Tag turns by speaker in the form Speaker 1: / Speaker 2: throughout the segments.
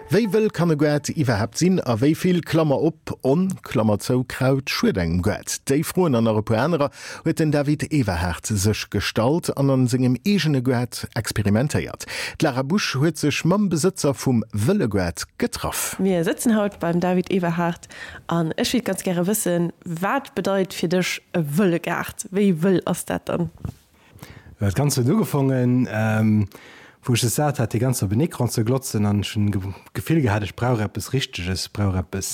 Speaker 1: Wéi wëll kann e Goart iwwerhaapt sinn a wéi vill, Klammer op, on, Klammer zou, Kraut schued engem Goart? Déi Froen an nach e puer anerer huet den David Everhard sech gestallt an an sengem eegene Goart experimentéiert. D'Lara Busch huet sech mam Besëtzer vum Wëlle Goart getraff.
Speaker 2: Mir sëtzen haut beim David Everhard an ech wéilt ganz gäre wëssen, wat bedeit fir dech e wëlle Gaart? Wéi wëll ass dat dann?
Speaker 3: Dat Ganzt huet ugefongen, wou ech es sat hat, déi ganz op en Ecran ze glotzen an ech hunn d'Gefill gehat, ech brauch eppes Richteges, ech brauch eppes,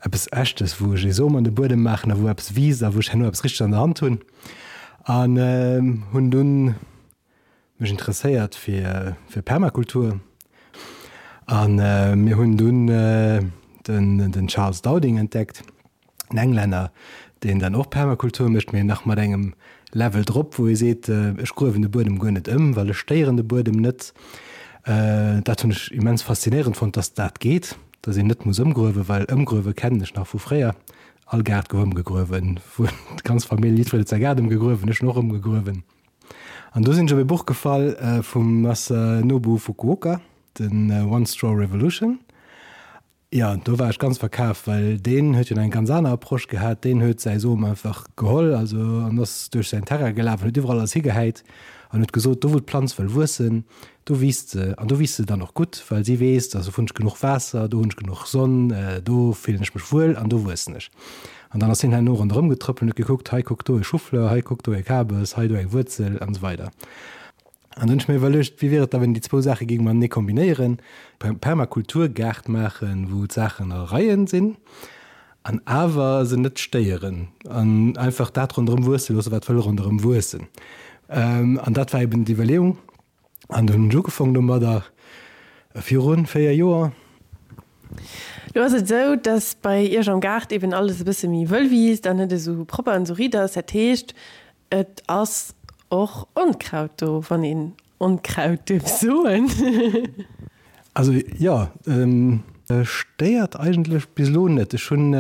Speaker 3: eppes Echtes, wou ech ee Som an de Buedem maachen a wou eppes wiisst a wou ech herno eppes Richteges an der Hand hunn. An hunn dunn mech interesséiert fir, fir Permakultur a mir hunn dunn den, den Charles Dowding entdeckt. en Englänner, deen dann och Permakultur mécht, mee nach mat engem Level drop, wou e seet, ech gruewen de Buedem guer net ëm, well ech stéieren de Buedem net. Dat hunn ech immens faszinéierend fonnt, dass dat geet, dass een net muss ëmgruewen, well ëmgruewe kennen ech nach vu fréier. All Gaart gouf ëmgegruewen, wou d'ganz Famill, jiddwereen huet säi Gaart ëmgegruewen, ech hunn och ëmgegruewen. An do sinn ech op e Buch gefall vum Masanobu Fukuoka, den One Straw Revolution. Jo, do war ech ganz verkaf, well deen huet jo nach eng ganz aner Approche gehat. Deen huet säi Som einfach geholl, also an ass duerch säin Terrain gelaf an huet iwwerall alles higehäit an huet gesot, do wou d'Planz wëll wuessen, do wiisst se an do wiisst se dann och gutt, well si weess, do hunn ech genuch Waasser, do hunn ech genuch Sonn, do fillen ech mech wuel an do wuessen ech. An dann ass hien herno ronderëm getrëppelt an huet gekuckt, hei kuck do e Choufleur, hei kuck do e Kabes, hei do eng Wuerzel an esou weider. An dann hunn ech mir iwwerluecht, wéi wier et da, wann een déi zwou Saache géing matenee kombinéieren, Permakulturgaart maachen, wou d'Saachen a Reien sinn an awer se net stéieren an einfach dat ronderëm wuesse loossen, wat wëll ronderëm wuessen. An dat war eben d'Iwwerleeung. An dunn hunn ech ugefaangen domadder, viru 4 Joer.
Speaker 2: Lo ass et esou, dass bei Iech am Gaart eben alles e bësse méi wëll wiisst an net esou propper an esou riit ass. Dat heescht, Et ass och Onkraut do, wann een Onkraut duerf soen.
Speaker 3: Also jo, stéiert eigentlech bis elo net. Ech hunn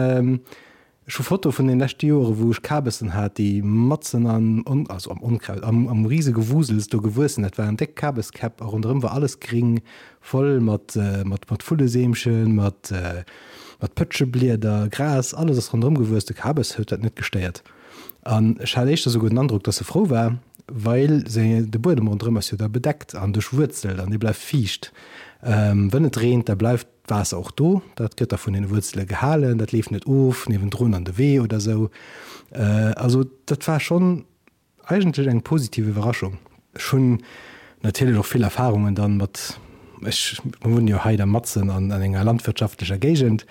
Speaker 3: ech hu Fotoe vun den leschte Joere wou ech Kabessen hat, déi matzen am also am Onkraut, am am risege Wusels do gewuess sinn. Dat waren déck Kabeskäpp a ronderëm war alles gring, voll mat mat mat Vulleseemchen, mat mat Pëtscheblieder, Gras, alles ass ronderëm gewuess. De Kabes huet dat net gestéiert. An ech hat éischter souguer den Androck, dass se frou war, well se, de Buedem ronderëm ass jo da bedeckt an duerchwuerzelt an dee bleift fiicht. Wënn et reent, da bleift d'Waasser och do, dat gëtt da vun den Wuerzele gehalen, dat leeft net of niewendrun an de Wee oder sou. Also dat war schonn eigentlech eng positiv Iwwerraschung. Ech hunn natierlech och vill Erfahrungen dann mat, ech wunnen jo hei da matzen an enger landwirtschaftlecher Géigend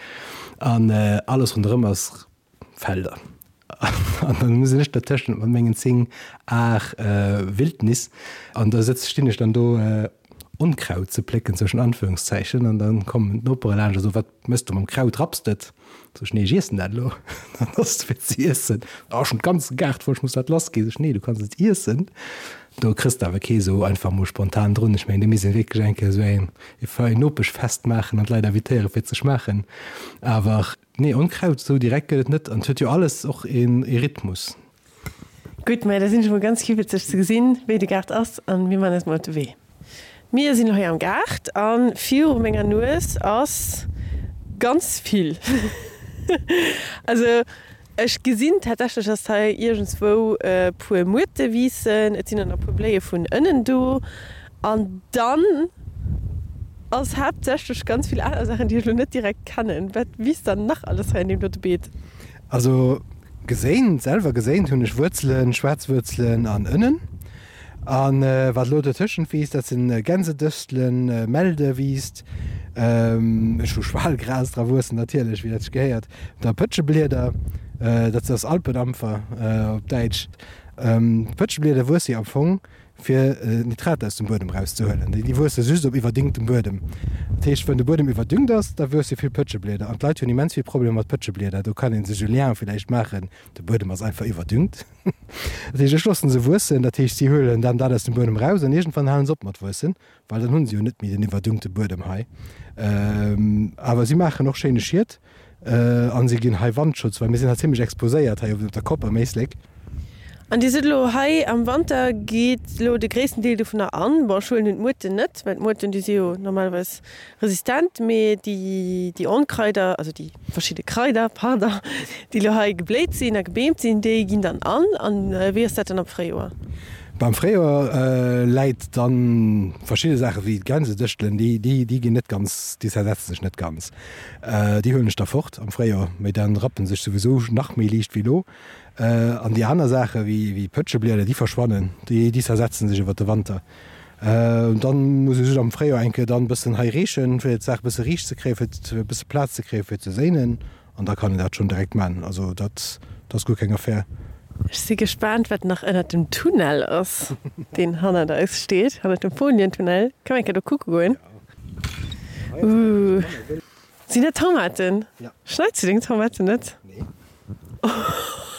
Speaker 3: an alles ronderëm ass Felder. An dann sinn ech dertëschent mat mengen 10 Ar Wildnis an da sëtz, stinn ech dann do Onkraut ze plécken, zwëschen Anführungszeichen, an dann kommen d'Nopere laanscht a soen, Wat mëss du mam Kraut, rapps de et? Sot ech, Nee, ech iessen dat elo. Dann ass et fir ze iessen. Oh, ech hunn d'ganze Gaart voll, ech muss dat lass ginn. Sot ech, Nee, du kanns et iessen. Do kriss de awer kee sou einfach mol spontan drun. Ech mengen, do misst een wierklech eng Kéier sou eng Nopeschfest maachen an d'Leit invitéiere fir et ze schmaachen. Awer Nee, Onkraut esou direkt gëtt et net an et huet jo alles och een Rhythmus.
Speaker 2: Gutt, mä da sinn ech emol ganz kiwwelzeg ze gesinn, wéi de Gaart ass an mir man eis mol op de Wee. Mir sinn elo hei am Gaart a viru menger Nues ass ganz vill. Also ech gesinn tatsächlech, dass hei iergendswou e puer Muerte wiissen, et sinn och nach e puer Bléie vun Ënnen do an dann ass haaptsächlech ganz vill aner Saachen, déi ech elo net direkt kennen. Wat wiisst dann nach alles hei an deem dote Beet?
Speaker 3: Also geséint, selwer geséint hunn ech Wuerzelen, schwaarz Wuerzelen an Ënnen. A wat elo dotëschent wiisst, dat sinn Gänsedëstelen, Melde wiisst, ech hu Schwalgras dra wuessen natierlech, wéi dat sech gehéiert, da Pëtscheblieder, dat ass Alpenampfer op Däitsch. D'Pëtscheblieder wuesse jo am Fong fir Nitrat aus dem Buedem erauszehuelen. Déi wuesse just op iwwerdüngtem Buedem. Dat heescht, wann de Buedem iwwerdüngt ass, da wuesse vill Pëtscheblieder. An d'Leit hunn immens vill Problemer mat Pëtscheblieder. Do kann ee sech e Lien villäicht maachen, de Buedem ass einfach iwwerdüngt. Dat heescht, ech loosse se wuessen, dat heescht, si huelen dann dat aus dem Buedem eraus an iergendwann halen se op mat wuessen, well dann hu se jo net méi den iwwerdüngte Buedem hei. Awer si maachen och schéine Schiet an si ginn hei Wandschutz, well mir sinn hei zimmlech exposéiert hei op der Kopp am Éislek.
Speaker 2: An Dir sot elo hei, am Wanter geet elo de gréissten Deel dovunner an. Bon, ech huelen un d'Muerten net, well d'Muerten, déi si jo normalerweis resistent, mee déi, déi Onkraider, also déi verschidde Kraider, pardon, déi elo hei gebléit sinn a gebeemt sinn, déi ginn dann an. An wéi ass dat dann am Fréijoer?
Speaker 3: Beim Fréijoer läit dann verschidde Saache wéi d'Gänsedëschtelen, déi, déi, déi ginn net ganz, déi zersetzen sech net ganz. Déi huelen ech da fort am Fréijoer, mee dann rappen se sech souwisou nach méi liicht wéi elo. An déi aner Saache wéi Pëtscheblieder, déi verschwannen, déi zersetzen sech iwwer de Wanter. Dann muss ech just am Fréijoer eng Kéier dann e bëssen hei reechen, fir d'Saach e bësse riicht ze kréien, fir e bësse Plaz ze kréien, fir ze séinen. An da kann een dat schonn direkt man. Also dat ass guer keng Affär.
Speaker 2: Ech si gespaant, wat nach ënnert dem Tunnel ass, deen hannert eis steet, hannert dem Folientunnel. Kënne mer eng Kéier do kucke goen? Ooh. Sinn dat Tomaten?
Speaker 3: Ja.
Speaker 2: Schneits du deng Tomaten net?
Speaker 3: Nee.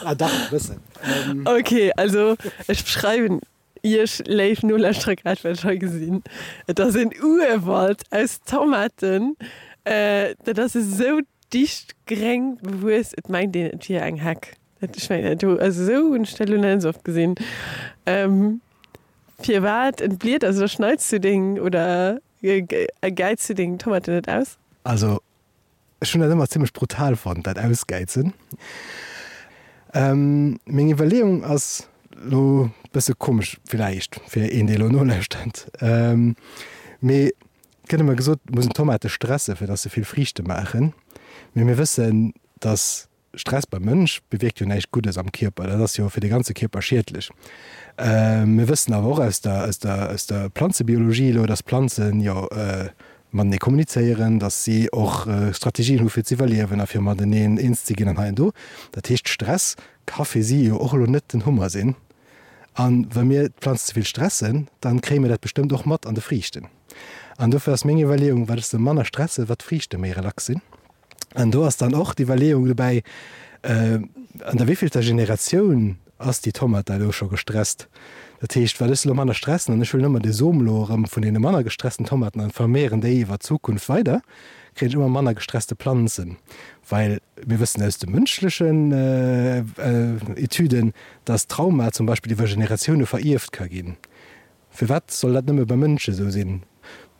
Speaker 3: Ah dach, e bëssen.
Speaker 2: Ok, also ech beschreiwen iech, léif Nolauschterer, grad wat ech hei gesinn. Et ass en Urwald aus Tomaten. Dat ass esou dicht gréng bewuess, et mengt een, et wier eng Heck. Ech mengen, do, also esou hunn ech dat elo nach net esou oft gesinn. Firwat entbliet, also da schneits du deng oder Gäiz du deng Tomaten net aus?
Speaker 3: Also ech hunn dat ëmmer zimmlech brutal fonnt, dat Ausgäizen. Meng Iwwerleeung ass lo bësse komesch villäicht fir een dee lo nolauschtert, mee et gëtt ëmmer gesot, et muss een Tomate stresse fir datt se vill Friichte maachen. Mee mir wëssen, datt Stress beim Mënsch bewierkt jo näischt Guddes am Kierper, dat ass jo fir de ganze Kierper schiedlech. Mir wëssen awer och aus der, aus der, aus der Planzebiologie elo, dass Planzen jo matenee kommunizéieren, dass si och Strategien hu fir z'iwwerliewen a fir mateneen eens ze ginn an hei an do. Dat heescht, Stress ka fir si jo och elo net den Hummer sinn. A wa mir d'Planz ze vill stressen, dann kréie mir dat bestëmmt och mat an de Friichten. An dofir ass meng Iwwerleeung, wat ech se manner stresse, wat d'Friichte méi relax sinn. An do ass dann och d'Iwwerleeung dobäi, an der wéivillter Generatioun ass déi Tomat da elo scho gestresst? Dat heescht, wat ech se elo manner stressen an ech huelen ëmmer de Som elo erëm vun deene manner gestressten Tomaten an vermehren déi iwwer d'Zukunft weider, kréien ech ëmmer manner gestresste Planzen. Well mir wëssen aus de mënschlechen Etüden, dass Trauma zum Beispill iwwer Generatioune verierft ka ginn. Firwat soll dat nëmme bei Mënsche sou sinn?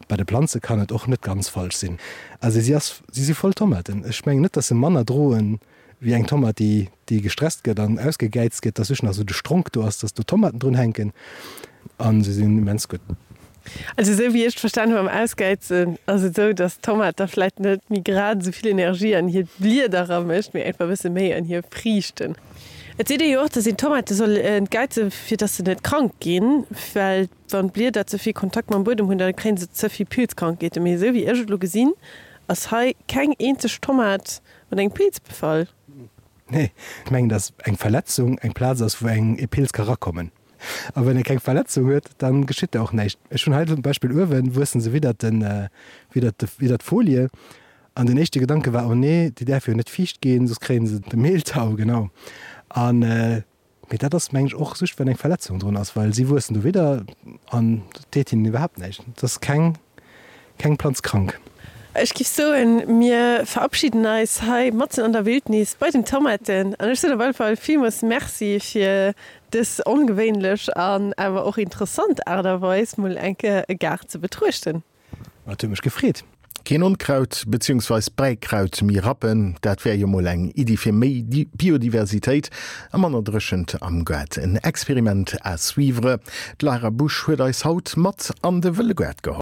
Speaker 3: Bei de Planze kann et och net ganz falsch sinn. Also si ass, si si voll Tomaten. Ech mengen net, dass se manner droen wéi eng Tomat, déi, déi gestresst gëtt an ausgegäizt gëtt, dass just nach sou de Stronk do ass, dass do Tomaten drun hänken. A se sinn immens gutt.
Speaker 2: Also esou wéi ech et verstan hu mam Ausgäizen, ass et esou, dass d'Tomat da vläit net méi grad esou vill Energie an hir Blieder eramécht, mee einfach e bësse méi an hir Friichten. Et seet ee jo och, dass een d'Tomate soll entgäizen, fir dass se net krank ginn, well wann d'Blieder ze vill Kontakt mam Buedem hunn, da kréien se ze vill Pilzkrankheeten. Mee esou wéi ech et elo gesinn, ass hei keng eenzeg Tomat mat engem Pilz befall.
Speaker 3: Nee, ech mengen, dass eng Verletzung eng Plaz ass, wou eng e Pilz ka rakommen. A wann ee keng Verletzung huet, da geschitt da och näischt. Ech hunn hei zum Beispill uewen wuessen se widdert den, widdert de, widdert d'Folie. An den éischte Gedanke war, oh nee, déi däerfe jo net fiicht ginn, soss kréien se de Mehltau, genau. An, mee dat ass, mengen ech, och just, wann eng Verletzung drun ass, well si wuessen do widder an et deet hinnen iwwerhaapt näischt. Et ass keng, keng Planz krank.
Speaker 2: Ech giff soen, mir verabschieden eis hei matzen an der Wildnis bei den Tomaten. An ech soen op alle Fall villmools Merci fir dës ongewéinlech an awer och interessant Aart a Weis, mol eng Kéier e Gaart ze betruechten.
Speaker 3: Et huet mech gefreet.
Speaker 1: Keen Onkraut beziehungsweis Bäikraut méi rappen, dat wär jo mol eng Iddi fir méi Biodiversitéit a manner Dréchent am Gaart. En Experiment à suivre. D'Lara Busch huet eis haut mat an de wëlle Gaart geholl.